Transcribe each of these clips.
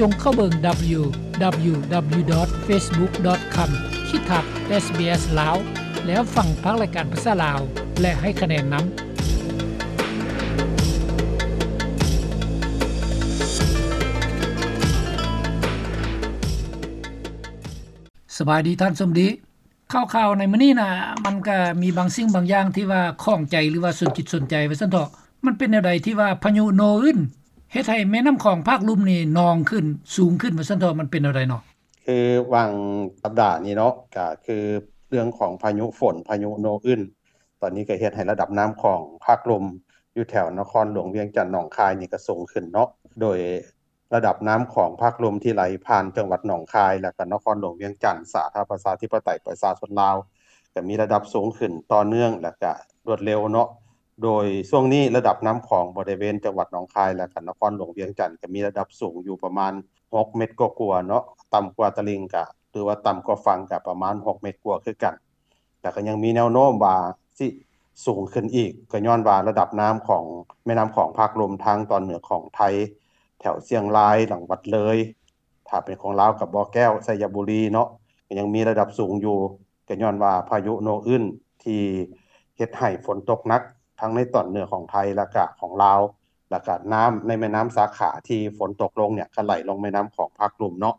ຈົ່ງເຂົ້າເບິ່ງ ດັບເບິນຢູ ດັບເບິນຢູ ດັບເບິນຢູ ດອດ ເຟສບຸກ ດອດ ຄອມ ຂີດທັບ ເອສບີເອສ ລາວ ແລ້ວຟັງພາກລາຍການພາສາລາວ ແລະ ໃຫ້ຄະແນນນຳ. ສະບາຍດີທ່ານສົມດີ. ຂ່າວໆໃນມື້ນີ້ນະ ມັນກະມີບາງສິ່ງບາງຢ່າງທີ່ວ່າຂ້ອງໃຈ ຫຼືວ່າສົນຈິດສົນໃຈວ່າຊັ້ນເຖາະ. ມັນເປັນແນວໃດທີ່ວ່າພາຍຸໂນອຶນເຮັດໃຫ້ແມ່ນ້ຳຂອງພາກລຸ່ມນີ້ນອງຂຶ້ນ ສູງຂຶ້ນວ່າຊັ້ນເຖາະ ມັນເປັນແນວໃດເນາະ? ຄືຫວ່າງສັບດານີ້ເນາະ ກະຄືເລື່ອງຂອງພາຍຸຝົນ ພາຍຸໂນອຶນ ຕອນນີ້ກະເຮັດໃຫ້ລະດັບນ້ຳຂອງພາກລຸ່ມຢູ່ແຖວນະຄອນຫຼວງວຽງຈັນ ໜອງຄາຍນີ້ກະສູງຂຶ້ນເນາະ ໂດຍ ລະດັບນ້ຳຂອງພາກລຸ່ມທີ່ໄຫຼຜ່ານຈັງຫວັດໜອງຄາຍ ແລະ ກະນະຄອນຫຼວງວຽງຈັນ ສາທາລະນະລັດປະຊາທິປະໄຕປະຊາຊົນລາວ ກະມີລະດັບສູງຂຶ້ນຕໍ່ເນື່ອງ ແລະ ກະລວດເລັວເນາະ. ໂດຍຊ່ວງນີ້ລະດັບນ້ຳຂອງບໍລິເວນຈັງຫວັດໜອງຄາຍ ແລະ ກະນະຄອນຫຼວງວຽງຈັນ ກະມີລະດັບສູງຢູ່ປະມານຫົກເມັດກວ່າໆເນາະ ຕ່ຳກວ່າຕະລິ່ງກະ ຫຼືວ່າຕ່ຳກວ່າຝັ່ງກະປະມານຫົກເມັດກວ່າຄືກັນ. ແລ້ວກໍຍັງມີແນວໂນ້ມວ່າຊິສູງຂຶ້ນອີກ ກໍຍ້ອນວ່າລະດັບນ້ຳຂອງແມ່ນ້ຳຂອງພາກລຸ່ມທາງຕອນເໜືອຂອງໄທ ແຖວຊຽງລາຍ ຫຼັງວັດເລີຍ ຖ້າເປັນຂອງລາວກໍບໍ່ແກ້ວ ໄຊຍະບູລີເນາະ ກໍຍັງມີລະດັບສູງຢູ່ ກໍຍ້ອນວ່າພາຍຸໂນອຶນທີ່ເຮັດໃຫ້ຝົນຕົກໜັກທັງໃນຕອນເໜືອຂອງໄທ ແລ້ວກະຂອງລາວ ແລ້ວກະນ້ຳໃນແມ່ນ້ຳສາຂາທີ່ຝົນຕົກລົງເນ່ຍ ກໍໄຫຼລົງແມ່ນ້ຳຂອງພາກລຸ່ມເນາະ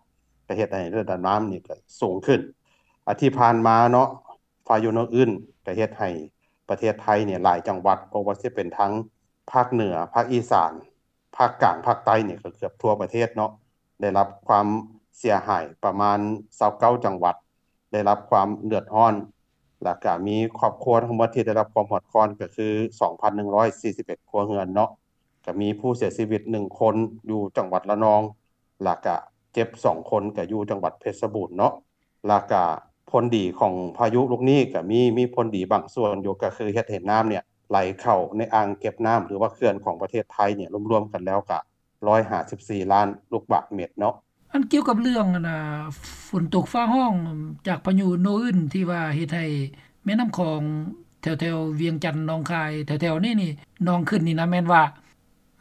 ກໍເຮັດໃຫ້ລະດັບນ້ຳນີ້ກໍສູງຂຶ້ນ. ອາ ທີ່ຜ່ານມາເນາະ ພາຍຸໂນອຶນກໍເຮັດໃຫ້ປະເທດໄທນີ້ຫຼາຍຈັງຫວັດ ບໍ່ວ່າຊິເປັນທາງພາກເໜືອ, ພາກອີສານ, ພາກກາງ, ພາກໃຕ້ນີ້ກໍເກືອບທົ່ວປະເທດເນາະ ໄດ້ຮັບຄວາມເສຍຫາຍປະມານຊາວເກົ້າຈັງຫວັດ ໄດ້ຮັບຄວາມເດືອດຮ້ອນ ແລ້ວກະມີຄອບຄົວທັງໝົດທີ່ໄດ້ຮັບຄວາມເດືອດຮ້ອນກໍຄືສອງພັນໜຶ່ງຮ້ອຍສີ່ສິບເອັດຄົວເຮືອນເນາະ ກະມີຜູ້ເສຍຊີວິດໜຶ່ງຄົນຢູ່ຈັງຫວັດລະນອງ ແລ້ວກະເຈັບສອງຄົນກະຢູ່ຈັງຫວັດເພັດຊະບູນເນາະ. ແລ້ວກະຜົນດີຂອງພາຍຸລູກນີ້ກະມີ ມີຜົນດີບາງສ່ວນຢູ່ ກະຄືເຮັດໃຫ້ນ້ຳເນ່ຍໄຫຼເຂົ້າໃນອ່າງເກັບນ້ຳ ຫຼືວ່າເຂື່ອນຂອງປະເທດໄທເນ່ຍ ລວມໆກັນແລ້ວກະຮ້ອຍຫ້າສິບສີ່ລ້ານລູກບາດເມັດເນາະ. ອັນກ່ຽວກັບເລື່ອງ ອັນນ່າ ຝົນຕົກຟ້າຮ້ອງຈາກພາຍຸໂນອຶນທີ່ວ່າເຮັດໃຫ້ແມ່ນ້ຳຂອງແຖວໆວຽງຈັນ ໜອງຄາຍ ແຖວໆນີ້ນີ້ນອງຂຶ້ນນີ້ນະ ແມ່ນວ່າ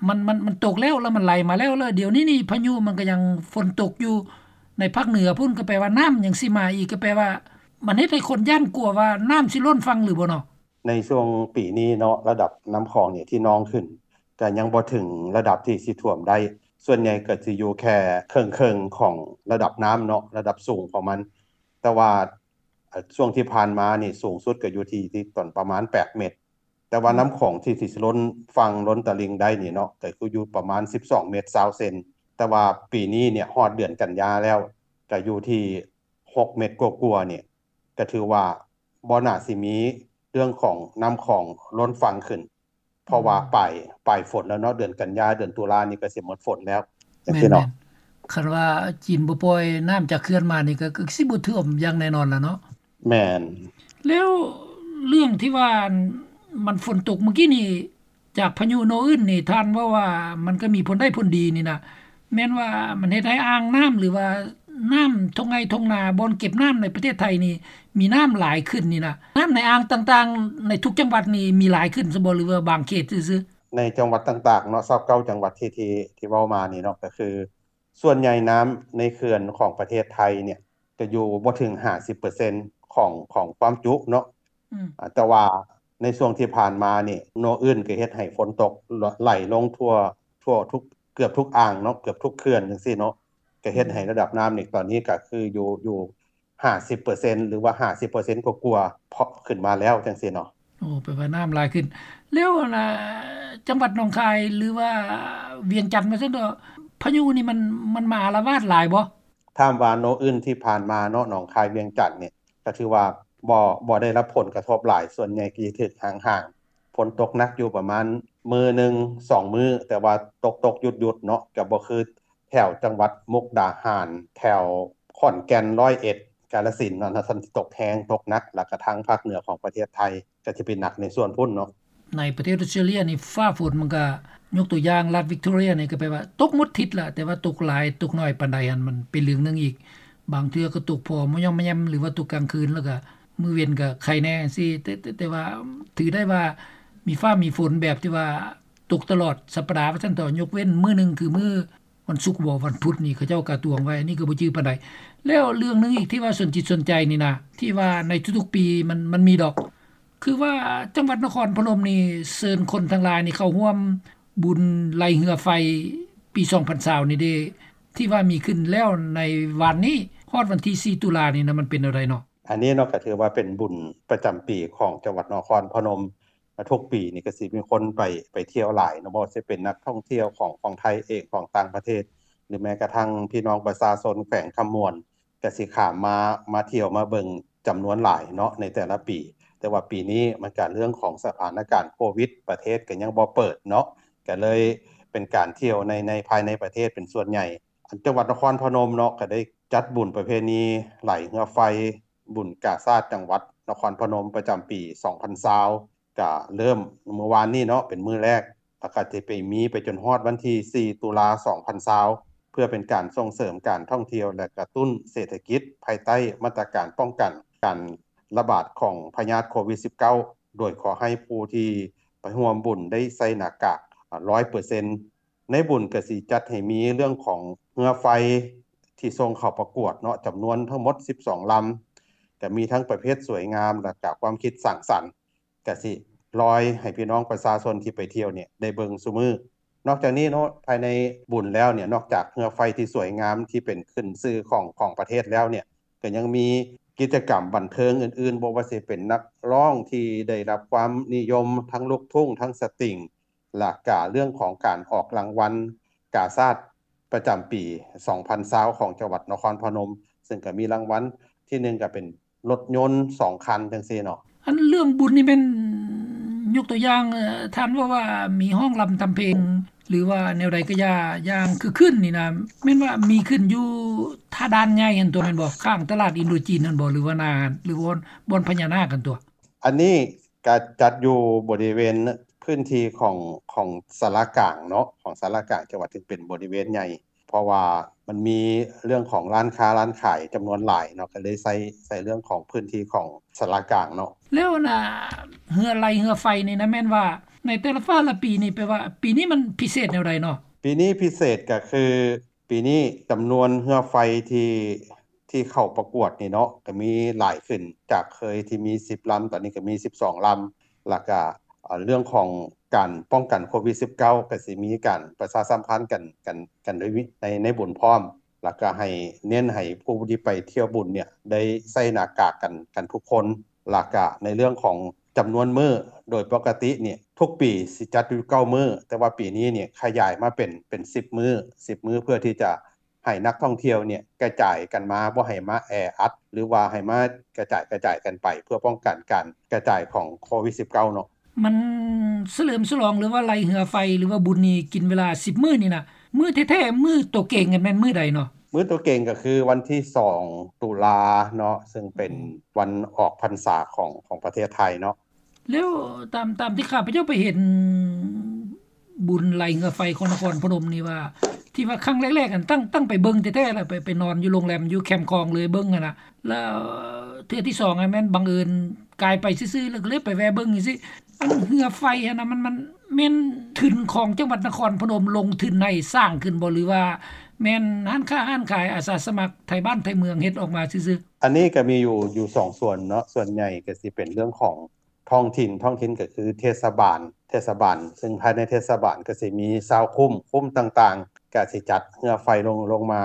ມັນ ມັນ ມັນຕົກແລ້ວ ແລ້ວມັນໄຫຼມາແລ້ວ ແລ້ວດຽວນີ້ນີ້ພາຍຸມັນກໍຍັງຝົນຕົກຢູ່ໃນພາກເໜືອພຸ້ນ ກໍແປວ່ານ້ຳຍັງຊິມາອີກ ກໍແປວ່າມັນເຮັດໃຫ້ຄົນຢ້ານກົວວ່ານ້ຳຊິລົ້ນຝັ່ງຫຼືບໍ່ເນາະ? ໃນຊ່ວງປີນີ້ເນາະ ລະດັບນ້ຳຂອງນີ້ທີ່ນອງຂຶ້ນ ກໍຍັງບໍ່ເຖິງລະດັບທີ່ຊິຖ້ວມໄດ້ ສ່ວນໃຫຍ່ກໍຊິຢູ່ແຄ່ເຄິ່ງໆຂອງລະດັບນ້ຳເນາະ ລະດັບສູງຂອງມັນ ແຕ່ວ່າ ເອີ່ ຊ່ວງທີ່ຜ່ານມານີ້ສູງສຸດກໍຢູ່ທີ່ ທີ່ຕອນປະມານແປດເມັດ ແຕ່ວ່າ ອືມ ນ້ຳຂອງທີ່ ທີ່ຊິລົ້ນຝັ່ງລົ້ນຕະລິ່ງໄດ້ນີ້ເນາະ ກໍຄືຢູ່ປະມານສິບສອງເມັດຊາວເຊັນ ແຕ່ວ່າປີນີ້ເນ່ຍຮອດເດືອນກັນຍາແລ້ວ ກໍຢູ່ທີ່ຫົກເມັດກວ່າໆນີ້ ກໍຖືວ່າບໍ່ໜ້າຊິມີເລື່ອງຂອງນ້ຳຂອງລົ້ນຝັ່ງຂຶ້ນ ເພາະວ່າ ອືມ ປາຍ ປາຍຝົນແລ້ວເນາະ ເດືອນກັນຍາ ເດືອນຕຸລານີ້ກໍຊິໝົດຝົນແລ້ວ ຈັ່ງຊີ້ເນາະ. ແມ່ນໆ ຄັນວ່າຈີນບໍ່ປ່ອຍນ້ຳຈາກເຂື່ອນມານີ້ ກໍ ກໍຊິບໍ່ຖ້ວມຢ່າງແນ່ນອນລະເນາະ. ແມ່ນ. ແລ້ວເລື່ອງທີ່ວ່າ ອັນ ມັນຝົນຕົກມື້ກີ້ນີ້ ຈາກພາຍຸໂນອຶນນີ້ ທ່ານເວົ້າວ່າມັນກໍມີຜົນໄດ້ຜົນດີນີ້ນະ ແມ່ນວ່າມັນເຮັດໃຫ້ອ່າງນ້ຳ ຫຼືວ່ານ້ຳທົ່ງໄຮ່ທົ່ງນາ ບ່ອນເກັບນ້ຳໃນປະເທດໄທນີ້ ມີນ້ຳຫຼາຍຂຶ້ນນີ້ນະ ນ້ຳໃນອ່າງຕ່າງໆໃນທຸກຈັງຫວັດນີ້ມີຫຼາຍຂຶ້ນຊະບໍ່ ຫຼືວ່າບາງເຂດຊື່ໆ? ໃນຈັງຫວັດຕ່າງໆເນາະ ຊາວເກົ້າຈັງຫວັດທີ່ ທີ່ ທີ່ເວົ້າມານີ້ເນາະ ກໍຄືສ່ວນໃຫຍ່ນ້ຳໃນເຂື່ອນຂອງປະເທດໄທເນ່ຍ ຈະຢູ່ບໍ່ເຖິງຫ້າສິບເປີເຊັນຂອງ ຂອງຄວາມຈຸເນາະ ອືມ ອາ ແຕ່ວ່າໃນຊ່ວງທີ່ຜ່ານມານີ້ ໂນອຶນກໍເຮັດໃຫ້ຝົນຕົກ ຫຼ- ໄຫຼລົງທົ່ວ ທົ່ວທຸກ ເກືອບທຸກອ່າງເນາະ ເກືອບທຸກເຂື່ອນຈັ່ງຊີ້ເນາະ ກໍເຮັດໃຫ້ ອືມ ລະດັບນ້ຳນີ້ຕອນນີ້ກໍຄືຢູ່ ຢູ່ຫ້າສິບເປີເຊັນ ຫຼືວ່າຫ້າສິບເປີເຊັນກວ່າໆ ເພາະຂຶ້ນມາແລ້ວຈັ່ງຊີ້ເນາະ. ໂອ້ ແປວ່ານ້ຳຫຼາຍຂຶ້ນ ແລ້ວ ອັນນ່າ ຈັງຫວັດໜອງຄາຍ ຫຼືວ່າວຽງຈັນວ່າຊັ້ນເຖາະ ພາຍຸນີ້ມັນ ມັນມາອາລະວາດຫຼາຍບໍ່? ຖາມວ່າໂນອຶນທີ່ຜ່ານມາເນາະ ໜອງຄາຍ ວຽງຈັນນີ້ ກໍຖືວ່າບໍ່ ບໍ່ໄດ້ຮັບຜົນກະທົບຫຼາຍ ສ່ວນໃຫຍ່ກໍຈະຖືກຫ້າງໆ ຝົນຕົກໜັກຢູ່ປະມານມື້ໜຶ່ງສອງມື້ ແຕ່ວ່າຕົກໆຢຸດໆເນາະ ກໍບໍ່ຄືແຖວຈັງຫວັດມຸກດາຫານ ແຖວຂອນແກ່ນ ຮ້ອຍເອັດ ກາລະສິນເນາະ ນັ້ນຊິຕົກແຮງ ຕົກໜັກ ແລ້ວກະທາງພາກເໜືອຂອງປະເທດໄທ ກໍຈະເປັນໜັກໃນສ່ວນພຸ້ນເນາະ. ໃນປະເທດອົດສະເຕຣເລຍນີ້ ຟ້າຝົນມັນກະ ຍົກຕົວຢ່າງລັດວິກຕໍເຣຍນີ້ ກໍແປວ່າຕົກໝົດທິດລະ ແຕ່ວ່າຕົກຫຼາຍຕົກໜ້ອຍປານໃດຫັ້ນ ມັນເປັນເລື່ອງໜຶ່ງອີກ ບາງເທື່ອກໍຕົກພໍມະຍ່ອມມະແຍ່ມ ຫຼືວ່າຕົກກາງຄືນ ແລ້ວກະມື້ເວັນກະໄຄແດ່ຈັ່ງຊີ້ ແຕ່ ແຕ່ ແຕ່ວ່າຖືໄດ້ວ່າມີຟ້າມີຝົນແບບທີ່ວ່າຕົກຕະຫຼອດສັບປະດາວ່າຊັ້ນເຖາະ ຍົກເວັ້ນມື້ໜຶ່ງ ຄືມື້ ວັນສຸກບໍ ວັນພຸດນີ້ ເຂົາເຈົ້າກະຕວງໄວ້ ອັນນີ້ກໍບໍ່ຈື່ປານໃດ. ແລ້ວເລື່ອງໜຶ່ງອີກທີ່ວ່າສົນຈິດສົນໃຈນີ້ນະ ທີ່ວ່າໃນທຸກໆປີມັນ ມັນມີດອກ ຄືວ່າຈັງຫວັດນະຄອນພະນົມນີ້ເຊີນຄົນທັງຫຼາຍນີ້ເຂົ້າຮ່ວມບຸນໄລ່ເຮືອໄຟປີສອງພັນຊາວນີ້ເດ້ ທີ່ວ່າມີຂຶ້ນແລ້ວໃນວານນີ້ ຮອດວັນທີສີ່ຕຸລານີ້ນະ ມັນເປັນແນວໃດເນາະ? ອັນນີ້ເນາະ ກໍຖືວ່າເປັນບຸນປະຈຳປີຂອງຈັງຫວັດນະຄອນພະນົມ. ທຸກປີນີ້ກໍຊິມີຄົນໄປ ໄປທ່ຽວຫຼາຍເນາະ ບໍ່ວ່າຊິເປັນນັກທ່ອງທ່ຽວຂອງ ຂອງໄທເອງ ຂອງຕ່າງປະເທດ ຫຼືແມ້ກະທັ້ງພີ່ນ້ອງປະຊາຊົນແຂວງຄຳມ່ວນ ກະຊິຂ້າມມາ ມາທ່ຽວມາເບິ່ງຈຳນວນຫຼາຍເນາະໃນແຕ່ລະປີ. ແຕ່ວ່າປີນີ້ມັນກະເລື່ອງຂອງສະຖານະການໂຄວິດ ປະເທດກໍຍັງບໍ່ເປີດເນາະ ກະເລີຍເປັນການທ່ຽວໃນ ໃນ ພາຍໃນປະເທດເປັນສ່ວນໃຫຍ່. ອັນ ຈັງຫວັດນະຄອນພະນົມເນາະ ກະໄດ້ຈັດບຸນປະເພນີໄລ່ເຮືອໄຟ ບຸນກາຊາດຈັງຫວັດນະຄອນພະນົມປະຈຳປີສອງພັນຊາວ ກະເລີ່ມມື້ວານນີ້ເນາະ ເປັນມື້ແລກ ແລ້ວກະຈະໄປມີໄປຈົນຮອດວັນທີສີ່ຕຸລາສອງພັນຊາວ ເພື່ອເປັນການສົ່ງເສີມການທ່ອງທ່ຽວ ແລະ ກະຕຸ້ນເສດຖະກິດ ພາຍໃຕ້ມາດຕະການປ້ອງກັນການລະບາດຂອງພະຍາດໂຄວິດສິບເກົ້າ ໂດຍຂໍໃຫ້ຜູ້ທີ່ໄປຮ່ວມບຸນໄດ້ໃສ່ໜ້າກາກ ອາ ຮ້ອຍເປີເຊັນ. ໃນບຸນກະຊິຈັດໃຫ້ມີເລື່ອງຂອງເຮືອໄຟທີ່ສົ່ງເຂົ້າປະກວດເນາະ ຈຳນວນທັງໝົດສິບສອງລຳ ກະມີທັງປະເພດສວຍງາມ ແລະ ກະຄວາມຄິດສ້າງສັນ ກະຊິລອຍໃຫ້ພີ່ນ້ອງປະຊາຊົນທີ່ໄປທ່ຽວນີ້ໄດ້ເບິ່ງຊຸມື້. ນອກຈາກນີ້ເນາະ ພາຍໃນບຸນແລ້ວນີ້ ນອກຈາກເຮືອໄຟທີ່ສວຍງາມທີ່ເປັນຂຶ້ນຊື່ຂອງ ຂອງປະເທດແລ້ວນີ້ ກະຍັງມີກິດຈະກຳບັນເທີງອື່ນໆ ບໍ່ວ່າຊິເປັນນັກຮ້ອງທີ່ໄດ້ຮັບຄວາມນິຍົມ ທັງລູກທຸ້ງ ທັງສະຕິງ ແລະກະເລື່ອງຂອງການອອກລາງວັນກາຊາດປະຈຳປີສອງພັນຊາວຂອງຈັງຫວັດນະຄອນພະນົມ ເຊິ່ງກະມີລາງວັນທີໜຶ່ງກະເປັນລົດຍົນສອງຄັນຈັ່ງຊີ້ເນາະ. ອັນເລື່ອງບຸນນີ້ແມ່ນ ຍົກຕົວຢ່າງ ເອີ ທ່ານເວົ້າວ່າມີຮ້ອງລຳທຳເພງ ຫຼືວ່າແນວໃດກະຢ່າ ຢ່າງຄຶກຄື້ນນີ້ນະ ແມ່ນວ່າມີຂຶ້ນຢູ່ທ່າດ່ານໃຫຍ່ຫັ້ນຕົວະ ແມ່ນບໍ່? ຂ້າງຕະຫຼາດອິນໂດຈີນຫັ້ນບໍ່? ຫຼືວ່າໜ້າ ຫຼືບ່ອນ ບ່ອນພະຍານາກຫັ້ນຕົວະ? ອັນນີ້ກະຈັດຢູ່ບໍລິເວນພື້ນທີ່ຂອງ ຂອງສາລາກາງເນາະ ຂອງສາລາກາງຈັງຫວັດ ຊຶ່ງເປັນບໍລິເວນໃຫຍ່ ເພາະວ່າມັນມີເລື່ອງຂອງຮ້ານຄ້າຮ້ານຂາຍຈຳນວນຫຼາຍເນາະ ກະເລີຍໃຊ້ ໃຊ້ເລື່ອງຂອງພື້ນທີ່ຂອງສາລາກາງເນາະ. ແລ້ວອັນນາ ເຮືອໄລ່ເຮືອໄຟນີ້ນະ ແມ່ນວ່າໃນແຕ່ລະ ແຕ່ລະປີນີ້ ແປວ່າປີນີ້ມັນພິເສດແນວໃດເນາະ? ປີນີ້ພິເສດກະຄື ປີນີ້ຈຳນວນເຮືອໄຟທີ່ ທີ່ເຂົ້າປະກວດນີ້ເນາະ ກະມີຫຼາຍຂຶ້ນ ຈາກເຄີຍທີ່ມີສິບລຳ ຕອນນີ້ກະມີສິບສອງລຳ ແລ້ວກະ ເອີ ເລື່ອງຂອງການປ້ອງກັນໂຄວິດສິບເກົ້າ ກະຊິມີການປະຊາສຳພັນກັນ ກັນ ກັນໃນ ໃນບຸນພ້ອມ ແລ້ວກະໃຫ້ເນັ້ນໃຫ້ຜູ້ທີ່ໄປທ່ຽວບຸນນີ້ໄດ້ໃສ່ໜ້າກາກກັນ ກັນທຸກຄົນ ແລ້ວກະໃນເລື່ອງຂອງຈຳນວນມື້ ໂດຍປົກກະຕິນີ້ທຸກປີຊິຈັດຢູ່ເກົ້າມື້ ແຕ່ວ່າປີນີ້ນີ້ຂະຫຍາຍມາເປັນ ເປັນສິບມື້ ສິບມື້ ເພື່ອທີ່ຈະ ໃຫ້ນັກທ່ອງທ່ຽວນີ້ກະຈາຍກັນມາ ບໍ່ໃຫ້ມາແອອັດ ຫຼືວ່າໃຫ້ມາກະຈາຍ ກະຈາຍກັນໄປ ເພື່ອປ້ອງກັນການກະຈາຍຂອງໂຄວິດສິບເກົ້າເນາະ. ມັນສະເຫຼີມສະຫຼອງ ຫຼືວ່າໄລ່ເຮືອໄຟ ຫຼືວ່າບຸນນີ້ກິນເວລາສິບມື້ນີ້ນະ ມື້ແທ້ໆ ມື້ໂຕເກງຫັ້ນແມ່ນມື້ໃດເນາະ? ມື້ໂຕເກງກະຄືວັນທີສອງຕຸລາເນາະ ເຊິ່ງເປັນ ອືມ ວັນອອກພັນສາຂອງ ຂອງປະເທດໄທເນາະ. ແລ້ວຕາມ ຕາມທີ່ຂ້າພະເຈົ້າໄປເຫັນບຸນໄລ່ເຮືອໄຟຂອງນະຄອນພະນົມນີ້ວ່າ ທີ່ວ່າຄັ້ງແລກໆ ຫັ້ນຕັ້ງ ຕັ້ງໄປເບິ່ງແທ້ໆ ລະໄປ ໄປນອນຢູ່ໂຮງແຮມຢູ່ແຄມຂອງເລີຍເບິ່ງຫັ້ນນະ ລະເທື່ອທີສອງຫັ້ນແມ່ນບັງເອີນກາຍໄປຊື່ໆ ລະກະເລີຍໄປແວ່ເບິ່ງຈັ່ງຊີ້. ອັນເຮືອໄຟຫັ້ນນະ ມັນ ມັນແມ່ນທຶນຂອງຈັງຫວັດນະຄອນພະນົມລົງທຶນໃຫ້ສ້າງຂຶ້ນບໍ່ ຫຼືວ່າແມ່ນຮ້ານຄ້າຮ້ານຂາຍ ອາສາສະໝັກໄທບ້ານໄທເມືອງເຮັດອອກມາຊື່ໆ? ອັນນີ້ກະມີຢູ່ ຢູ່ສອງສ່ວນເນາະ ສ່ວນໃຫຍ່ກະຊິເປັນເລື່ອງຂອງ ທ້ອງຖິ່ນ ທ້ອງຖິ່ນກະຄືເທດສະບານ ເທດສະບານ ເຊິ່ງພາຍໃນເທດສະບານກະຊິມີຊາວຄຸ້ມ ຄຸ້ມຕ່າງໆ ກະຊິຈັດເຮືອໄຟລົງ ລົງມາ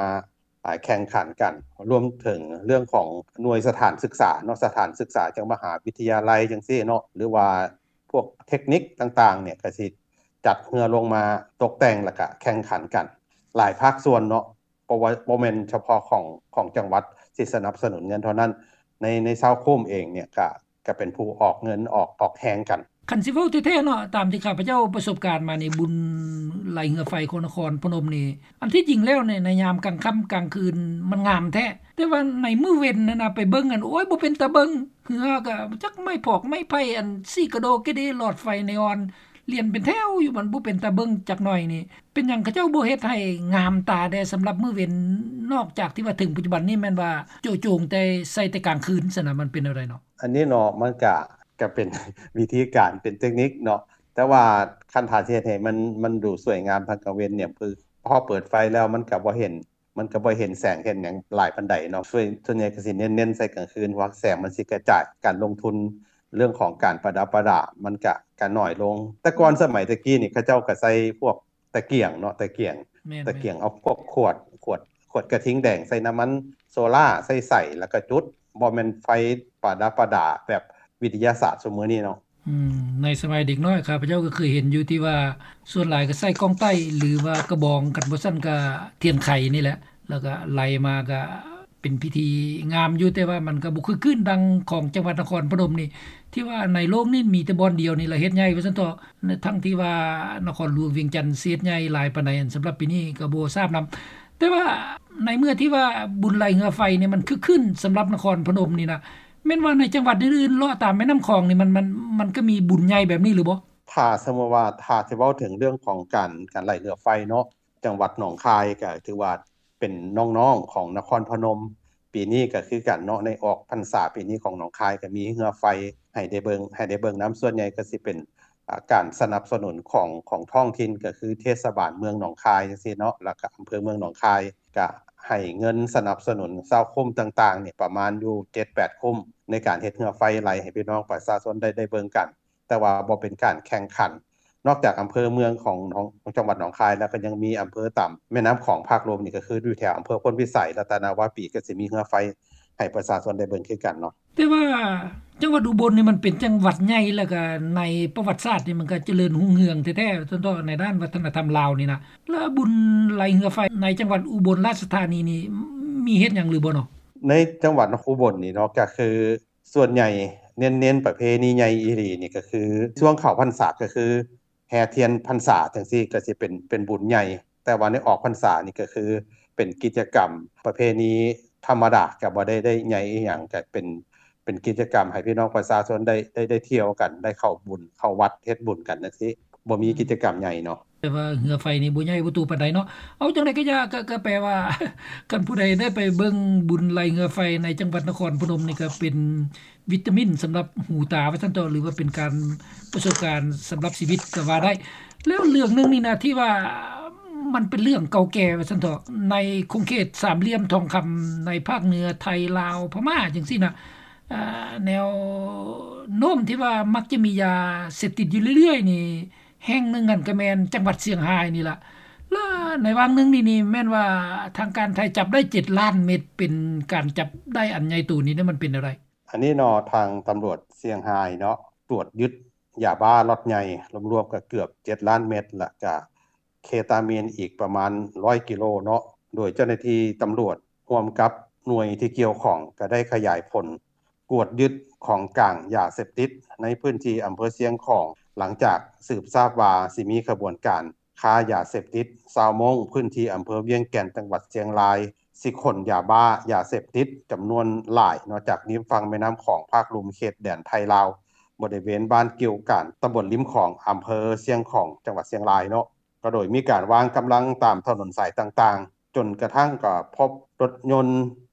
ອາ ແຂ່ງຂັນກັນ ລວມເຖິງເລື່ອງຂອງໜ່ວຍສະຖານສຶກສາເນາະ ສະຖານສຶກສາຈັ່ງມະຫາວິທະຍາໄລຈັ່ງຊີ້ເນາະ ຫຼືວ່າພວກເທັກນິກຕ່າງໆ ນີ້ກະຊິຈັດເຮືອລົງມາຕົກແຕ່ງ ແລ້ວກະແຂ່ງຂັນກັນ ຫຼາຍພາກສ່ວນເນາະ ບໍ່ວ່າ ບໍ່ແມ່ນສະເພາະຂອງ ຂອງຈັງຫວັດທີ່ສະໜັບສະໜູນເງິນເທົ່ານັ້ນ ໃນ ໃນຊາວຄຸ້ມເອງນີ້ກະ ກະເປັນຜູ້ອອກເງິນ ອອກ ອອກແຮງກັນ. ຄັນຊິເວົ້າແທ້ໆເນາະ ຕາມທີ່ຂ້າພະເຈົ້າປະສົບການມານີ້ ບຸນໄລ່ເຮືອໄຟຂອງນະຄອນພະນົມນີ້ ອັນທີ່ຈິງແລ້ວໃນ ໃນຍາມກາງຄ່ຳກາງຄືນມັນງາມແທ້ ແຕ່ວ່າໃນມື້ເວັນຫັ້ນນະ ໄປເບິ່ງຫັ້ນ ໂອ້ຍ ບໍ່ເປັນຕາເບິ່ງ ເຮືອກະຈັກໄມ້ພອກໄມ້ໄຜ່ ອັນສີກະໂດກະເດ ຫຼອດໄຟເນອອນ ລຽນເປັນແຖວຢູ່ ມັນບໍ່ເປັນຕາເບິ່ງຈັກໜ້ອຍນີ້. ເປັນຫຍັງເຂົາເຈົ້າບໍ່ເຮັດໃຫ້ງາມຕາແດ່ສຳລັບມື້ເວັນ ນອກຈາກທີ່ວ່າເຖິງປັດຈຸບັນນີ້ແມ່ນວ່າໂຈະໂຈງແຕ່ໃສ່ແຕ່ກາງຄືນຊັ້ນນະ ມັນເປັນແນວໃດເນາະ? ອັນນີ້ເນາະ ມັນກະ ກະເປັນວິທີການ ເປັນເຕັກນິກເນາະ ແຕ່ວ່າຄັນຖ້າຊິເຮັດໃຫ້ມັນ ມັນດູສວຍງາມທາງກາງເວັນນີ້ ຄື ພໍເປີດໄຟແລ້ວມັນກໍບໍ່ເຫັນ ມັນກໍບໍ່ເຫັນແສງເຫັນຫຍັງຫຼາຍປານໃດເນາະ. ສ່ວນ ສ່ວນໃຫຍ່ກໍຊິເນັ້ນ ເນັ້ນໃສ່ກາງຄືນ ເພາະວ່າແສງມັນຊິກະຈາຍ. ການລົງທຶນເລື່ອງຂອງການປະດັບປະດາ ມັນກະ ກະໜ້ອຍລົງ. ແຕ່ກ່ອນ ອືມ ສະໄໝແຕ່ກີ້ນີ້ ເຂົາເຈົ້າກໍໃສ່ພວກຕະກຽງເນາະ ຕະກຽງ ແມ່ນໆ ຕະກຽງ ເອົາພວກຂວດ ຂວດ ຂວດກະທິງແດງ ໃສ່ນ້ຳມັນໂຊລາ ໃສ່ໄສ ແລ້ວກໍຈຸດ ບໍ່ແມ່ນໄຟປະດັບປະດາແບບວິທະຍາສາດຊຸມມື້ນີ້ເນາະ. ອືມ ໃນສະໄໝເດັກນ້ອຍ ຂ້າພະເຈົ້າກໍເຄີຍເຫັນຢູ່ ທີ່ວ່າສ່ວນຫຼາຍກໍໃສ່ກ້ອງໄຕ້ ຫຼືວ່າກະບອງ ຄັນບໍ່ຊັ້ນກໍທຽນໄຂນີ້ແຫຼະ ແລ້ວກໍໄລ່ມາ ກໍເປັນພິທີງາມຢູ່ ແຕ່ວ່າມັນກໍບໍ່ຄຶກຄື້ນດັ່ງຂອງຈັງຫວັດນະຄອນພະນົມນີ້ ທີ່ວ່າໃນໂລກນີ້ມີແຕ່ບ່ອນດຽວນີ້ລະເຮັດໃຫຍ່ວ່າຊັ້ນເຖາະ ທັງທີ່ວ່ານະຄອນຫຼວງວຽງຈັນເຮັດໃຫຍ່ຫຼາຍປານໃດ ອັນສຳລັບປີນີ້ກໍບໍ່ຊາບນຳ. ແຕ່ວ່າໃນເມື່ອທີ່ວ່າບຸນໄລ່ເຮືອໄຟນີ້ມັນຄຶກຄື້ນສຳລັບນະຄອນພະນົມນີ້ນະ ແມ່ນວ່າໃນຈັງຫວັດອື່ນໆເລາະຕາມແມ່ນ້ຳຂອງນີ້ ມັນ ມັນ ມັນກໍມີບຸນໃຫຍ່ແບບນີ້ຫຼືບໍ່? ຖ້າສົມມຸດວ່າ ຖ້າຊິເວົ້າເຖິງເລື່ອງຂອງການ ການໄລ່ເຮືອໄຟເນາະ ຈັງຫວັດໜອງຄາຍກໍຖືວ່າເປັນນ້ອງໆຂອງນະຄອນພະນົມ ປີນີ້ກໍຄືກັນເນາະ ໃນອອກພັນສາປີນີ້ຂອງໜອງຄາຍກໍມີເຮືອໄຟໃຫ້ໄດ້ເບິ່ງ ໃຫ້ໄດ້ເບິ່ງນຳ. ສ່ວນໃຫຍ່ກໍຊິເປັນ ອາ ການສະໜັບສະໜູນຂອງ ຂອງທ້ອງຖິ່ນ ກໍຄືເທດສະບານເມືອງໜອງຄາຍຈັ່ງຊີ້ເນາະ ແລ້ວກໍອຳເພີເມືອງໜອງຄາຍ ກະໃຫ້ເງິນສະໜັບສະໜູນຊາວຄຸ້ມຕ່າງໆນີ້ ປະມານຢູ່ເຈັດແປດຄຸ້ມ ໃນການເຮັດເຮືອໄຟໄລ່ໃຫ້ພີ່ນ້ອງປະຊາຊົນໄດ້ ໄດ້ເບິ່ງກັນ ແຕ່ວ່າບໍ່ເປັນການແຂ່ງຂັນ. ນອກຈາກອຳເພີເມືອງຂອງ ຂອງ ຂອງຈັງຫວັດໜອງຄາຍແລ້ວ ກໍຍັງມີອຳເພີຕາມແມ່ນ້ຳຂອງພາກລຸ່ມນີ້ ກໍຄືຢູ່ແຖວອຳເພີໂພນພິໄສ ລັດຕະນະວາປີ ກໍຊິມີເຮືອໄຟໃຫ້ປະຊາຊົນໄດ້ເບິ່ງຄືກັນເນາະ. ແຕ່ວ່າຈັງຫວັດອຸບົນນີ້ມັນເປັນຈັງຫວັດໃຫຍ່ ແລ້ວກະໃນປະຫວັດສາດນີ້ມັນກະຈະເລີນຮຸ່ງເຮືອງແທ້ໆ ເຖິງຕໍ່ໃນດ້ານວັດທະນະທຳລາວນີ້ນະ ແລ້ວບຸນໄລ່ເຮືອໄຟໃນຈັງຫວັດອຸບົນລາຊະທານີນີ້ມີເຮັດຫຍັງຫຼືບໍ່ເນາະ? ໃນຈັງຫວັດອຸບົນນີ້ເນາະ ກະຄືສ່ວນໃຫຍ່ເນັ້ນໆປະເພນີໃຫຍ່ອີ່ຫຼີນີ້ ກະຄືຊ່ວງເຂົ້າພັນສາ ກະຄື ແຫ່ທຽນພັນສາຈັ່ງຊີ້ ກໍຊິເປັນ ເປັນບຸນໃຫຍ່ ແຕ່ວ່າໃນອອກພັນສານີ້ກໍຄືເປັນກິດຈະກຳປະເພນີທຳມະດາ ກໍບໍ່ໄດ້ ໄດ້ໃຫຍ່ອີ່ຫຍັງ ກໍເປັນ ເປັນກິດຈະກຳໃຫ້ພີ່ນ້ອງປະຊາຊົນໄດ້ ໄດ້ ໄດ້ທ່ຽວກັນ ໄດ້ເຂົ້າບຸນ ເຂົ້າວັດເຮັດບຸນກັນຈັ່ງຊີ້ ບໍ່ມີ ອືມ ກິດຈະກຳໃຫຍ່ເນາະ. ແຕ່ວ່າເຮືອໄຟນີ້ບໍ່ໃຫຍ່ບໍ່ໂຕປານໃດເນາະ. ເອົາ ຈັ່ງໃດກໍຢ່າ ກໍ ກໍແປວ່າ ຄັນຜູ້ໃດໄດ້ໄປເບິ່ງບຸນໄລ່ເຮືອໄຟໃນຈັງຫວັດນະຄອນພະນົມນີ້ ກໍເປັນ ວິຕາມິນສຳລັບຫູຕາວ່າຊັ້ນເຖາະ ຫຼືວ່າເປັນການປະສົບການສຳລັບຊີວິດກໍວ່າໄດ້. ແລ້ວເລື່ອງໜຶ່ງນີ້ນະ ທີ່ວ່າມັນເປັນເລື່ອງເກົ່າແກ່ວ່າຊັ້ນເຖາະ ໃນຂົງເຂດສາມຫຼ່ຽມທອງຄຳ ໃນພາກເໜືອໄທ ລາວ ພະມ້າ ຈັ່ງຊີ້ນະ ອາ ແນວໂນ້ມທີ່ວ່າມັກຈະມີຢາເສບຕິດຢູ່ເລື້ອຍໆນີ້ ແຫ່ງໜຶ່ງຫັ້ນກໍແມ່ນຈັງຫວັດຊຽງຮາຍນີ້ລະ. ແລະໃນຫວ່າງໜຶ່ງນີ້ນີ້ ແມ່ນວ່າທາງການໄທຈັບໄດ້ເຈັດລ້ານເມັດ ເປັນການຈັບໄດ້ອັນໃຫຍ່ໂຕນີ້ ມັນເປັນແນວໃດ? ອັນນີ້ເນາະ ທາງຕຳຫຼວດຊຽງຮາຍເນາະ ກວດຍຶດຢາບ້າລັອດໃຫຍ່ລວມໆກໍເກືອບເຈັດລ້ານເມັດ ແລະກະເຄຕາມີນອີກປະມານຮ້ອຍກິໂລເນາະ. ໂດຍເຈົ້າໜ້າທີ່ຕຳຫຼວດຮ່ວມກັບໜ່ວຍທີ່ກ່ຽວຂ້ອງ ກໍໄດ້ຂະຫຍາຍຜົນກວດຍຶດຂອງກາງຢາເສບຕິດໃນພື້ນທີ່ອຳເພີຊຽງຂອງ ຫຼັງຈາກສືບຊາບວ່າຊິມີຂະບວນການ ຄ້າຢາເສບຕິດ ຊາວມົ້ງພື້ນທີ່ອຳເພີວຽງແກ່ນ ຈັງຫວັດຊຽງລາຍ ຊິຂົນຢາບ້າ ຢາເສບຕິດຈຳນວນຫຼາຍເນາະ ຈາກລິມຝັ່ງແມ່ນ້ຳຂອງພາກລຸ່ມເຂດແດນໄທລາວ ບໍລິເວນບ້ານກິ່ວການ ຕຳບົນລິມຂອງ ອຳເພີຊຽງຂອງ ຈັງຫວັດຊຽງລາຍເນາະ. ກໍໂດຍມີການວາງກຳລັງຕາມຖະໜົນສາຍຕ່າງໆ ຈົນກະທັ້ງກໍພົບລົດຍົນ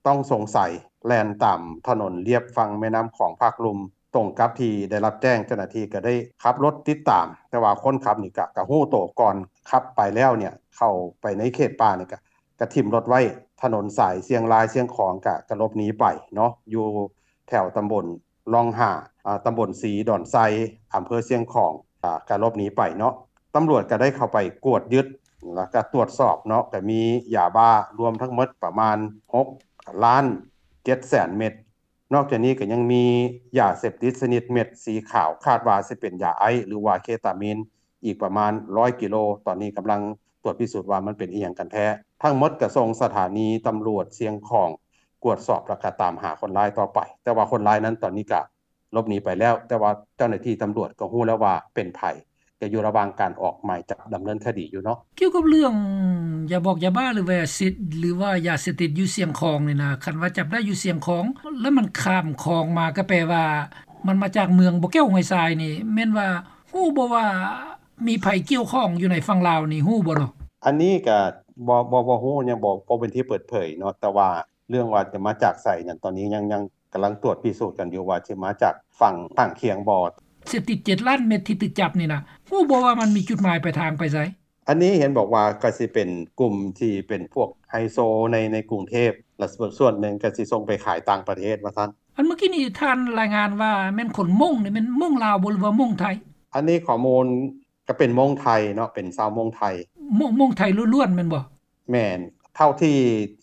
ຕ້ອງສົງໄສແລ່ນຕາມຖະໜົນລຽບຝັ່ງແມ່ນ້ຳຂອງພາກລຸ່ມ ຕົງກັບທີ່ໄດ້ຮັບແຈ້ງ, ເຈົ້າໜ້າທີ່ກໍໄດ້ຂັບລົດຕິດຕາມ, ແຕ່ວ່າຄົນຂັບນີ້ກະ ກະຮູ້ໂຕກ່ອນ, ຂັບໄປແລ້ວເນ່ຍ ເຂົ້າໄປໃນເຂດປ່ານີ້ກະ ກະຖິ້ມລົດໄວ້ຖະໜົນສາຍຊຽງລາຍຊຽງຂອງ ກະ ກະຫຼົບໜີໄປເນາະ ຢູ່ແຖວຕຳບົນລ່ອງຫ້າ ອາ ຕຳບົນສີດອນໄຊ ອຳເພີຊຽງຂອງ ອາ ກະຫຼົບໜີໄປເນາະ. ຕຳຫຼວດກະໄດ້ເຂົ້າໄປກວດຍຶດ ແລ້ວກະຕວດສອບເນາະ ກະມີຢາບ້າລວມທັງໝົດປະມານຫົກລ້ານເຈັດແສນເມັດ. ນອກຈາກນີ້ກໍຍັງມີຢາເສບຕິດຊະນິດເມັດສີຂາວ ຄາດວ່າຊິເປັນຢາໄອສ໌ ຫຼືວ່າເຄຕາມີນ ອີກປະມານຮ້ອຍກິໂລ, ຕອນນີ້ກຳລັງຕວດພິສູດວ່າມັນເປັນອີ່ຫຍັງກັນແທ້. ທັງໝົດກໍສົ່ງສະຖານີຕຳຫຼວດຊຽງຂອງກວດສອບ ແລ້ວກໍຕາມຫາຄົນຮ້າຍຕໍ່ໄປ, ແຕ່ວ່າຄົນຮ້າຍນັ້ນຕອນນີ້ກໍຫຼົບໜີໄປແລ້ວ, ແຕ່ວ່າເຈົ້າໜ້າທີ່ຕຳຫຼວດກໍຮູ້ແລ້ວວ່າເປັນໃຜ. ກໍຢູ່ລະຫວ່າງການອອກໝາຍຈັບດຳເນີນຄະດີຢູ່ເນາະ. ກ່ຽວກັບເລື່ອງຢາບອກຢາບ້າ ຫຼືວ່າຢາເສບ ຫຼືວ່າຢາເສບຕິດຢູ່ຊຽງຂອງນີ້ນະ, ຄັນວ່າຈັບໄດ້ຢູ່ຊຽງຂອງ ແລ້ວມັນຂ້າມຂອງມາ ກໍແປວ່າມັນມາຈາກເມືອງບໍ່ແກ້ວຫ້ວຍຊາຍນີ້ ແມ່ນວ່າຮູ້ບໍ່ວ່າມີໃຜກ່ຽວຂ້ອງຢູ່ໃນຝັ່ງລາວນີ້ ຮູ້ບໍ່ເນາະ? ອັນນີ້ກໍບໍ່ ບໍ່ ບໍ່ຮູ້ ຍັງບໍ່ ບໍ່ເປັນທີ່ເປີດເຜີຍເນາະ, ແຕ່ວ່າເລື່ອງວ່າຈະມາຈາກໃສນັ້ນ ຕອນນີ້ຍັງ ຍັງ ກຳລັງຕວດພິສູດກັນຢູ່ວ່າຊິມາຈາກຝັ່ງຂ້າງຄຽງບໍ່. ເສບຕິດເຈັດລ້ານເມັດທີ່ຖືກຈັບນີ້ນະ ຮູ້ບໍ່ວ່າມັນມີຈຸດໝາຍປາຍທາງໄປໃສ? ອັນນີ້ເຫັນບອກວ່າກໍຊິເປັນກຸ່ມທີ່ເປັນພວກໄຮໂຊໃນ ໃນກຸງເທບ ແລະສ່ວນໜຶ່ງກໍຊິສົ່ງໄປຂາຍຕ່າງປະເທດວ່າຊັ້ນ. ອັນເມື່ອກີ້ນີ້ທ່ານລາຍງານວ່າແມ່ນຄົນມົ້ງນີ້ ແມ່ນມົ້ງລາວບໍ່ ຫຼືວ່າມົ້ງໄທ? ອັນນີ້ຂໍ້ມູນກໍເປັນມົ້ງໄທເນາະ ເປັນຊາວມົ້ງໄທ. ມົ້ງ ມົ້ງໄທລ້ວນໆແມ່ນບໍ່? ແມ່ນ ເທົ່າທີ່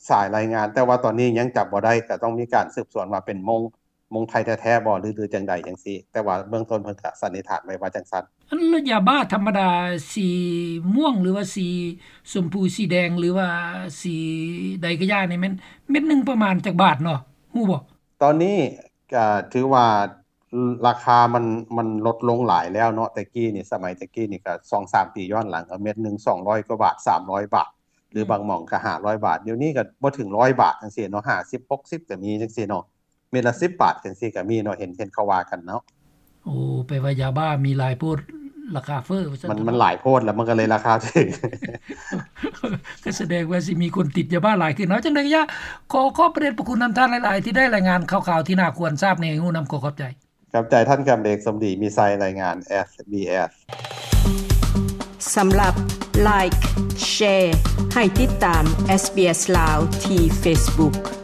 ສາຍລາຍງານ ແຕ່ວ່າຕອນນີ້ຍັງຈັບບໍ່ໄດ້ ກໍຕ້ອງມີການສືບສວນວ່າເປັນມົ້ງ ມົ້ງໄທແທ້ໆບໍ່ ຫຼື ຫຼືຈັ່ງໃດຈັ່ງຊີ້ ແຕ່ວ່າເບື້ອງຕົ້ນເພິ່ນກໍສັນນິຖານໄວ້ວ່າຈັ່ງຊັ້ນ. ອັນລະຢາບ້າທຳມະດາ ສີມ່ວງ ຫຼືວ່າສີຊົມພູ ສີແດງ ຫຼືວ່າສີໃດກໍຢ່ານີ້ ແມ່ນເມັດໜຶ່ງປະມານຈັກບາດເນາະ ຮູ້ບໍ່? ຕອນນີ້ກໍຖືວ່າລາຄາມັນ ມັນລົດລົງຫຼາຍແລ້ວເນາະ. ແຕ່ກີ້ນີ້ ສະໄໝແຕ່ກີ້ນີ້ກໍສອງສາມປີຍ້ອນຫຼັງ ກໍເມັດໜຶ່ງສອງຮ້ອຍກວ່າບາດ ສາມຮ້ອຍບາດ ຫຼືບາງໝ່ອງກໍຫ້າຮ້ອຍບາດ. ດຽວນີ້ກໍບໍ່ເຖິງຮ້ອຍບາດຈັ່ງຊີ້ເນາະ ຫ້າສິບ ຫົກສິບກໍມີຈັ່ງຊີ້ເນາະ ເມັດລະສິບບາດຈັ່ງຊີ້ກໍມີເນາະ ເຫັນ ເຫັນເຂົາວ່າກັນເນາະ. ໂອ້ ແປວ່າຢາບ້າມີຫຼາຍໂພດ ລາຄາເຟີ້ວ່າຊັ້ນ. ມັນ ມັນຫຼາຍໂພດ ແລ້ວມັນກໍເລີຍລາຄາຖືກ. ກໍສະແດງວ່າຊິມີຄົນຕິດຢາບ້າຫຼາຍຂຶ້ນເນາະ. ຈັ່ງໃດກໍຢ່າ ຂໍຂອບພະເດດພະຄຸນນຳທ່ານຫຼາຍໆ ທີ່ໄດ້ລາຍງານຂ່າວໆ ທີ່ໜ້າຄວນຊາບໃຫ້ຮູ້ນຳ. ຂໍຂອບໃຈ. ຂອບໃຈທ່ານຄຳເດກ ສົມດີມີໄຊ ລາຍງານ ເອສບີເອສ. ສຳລັບ Like Share ໃຫ້ຕິດຕາມ SBS ລາວ ທີ່ Facebook.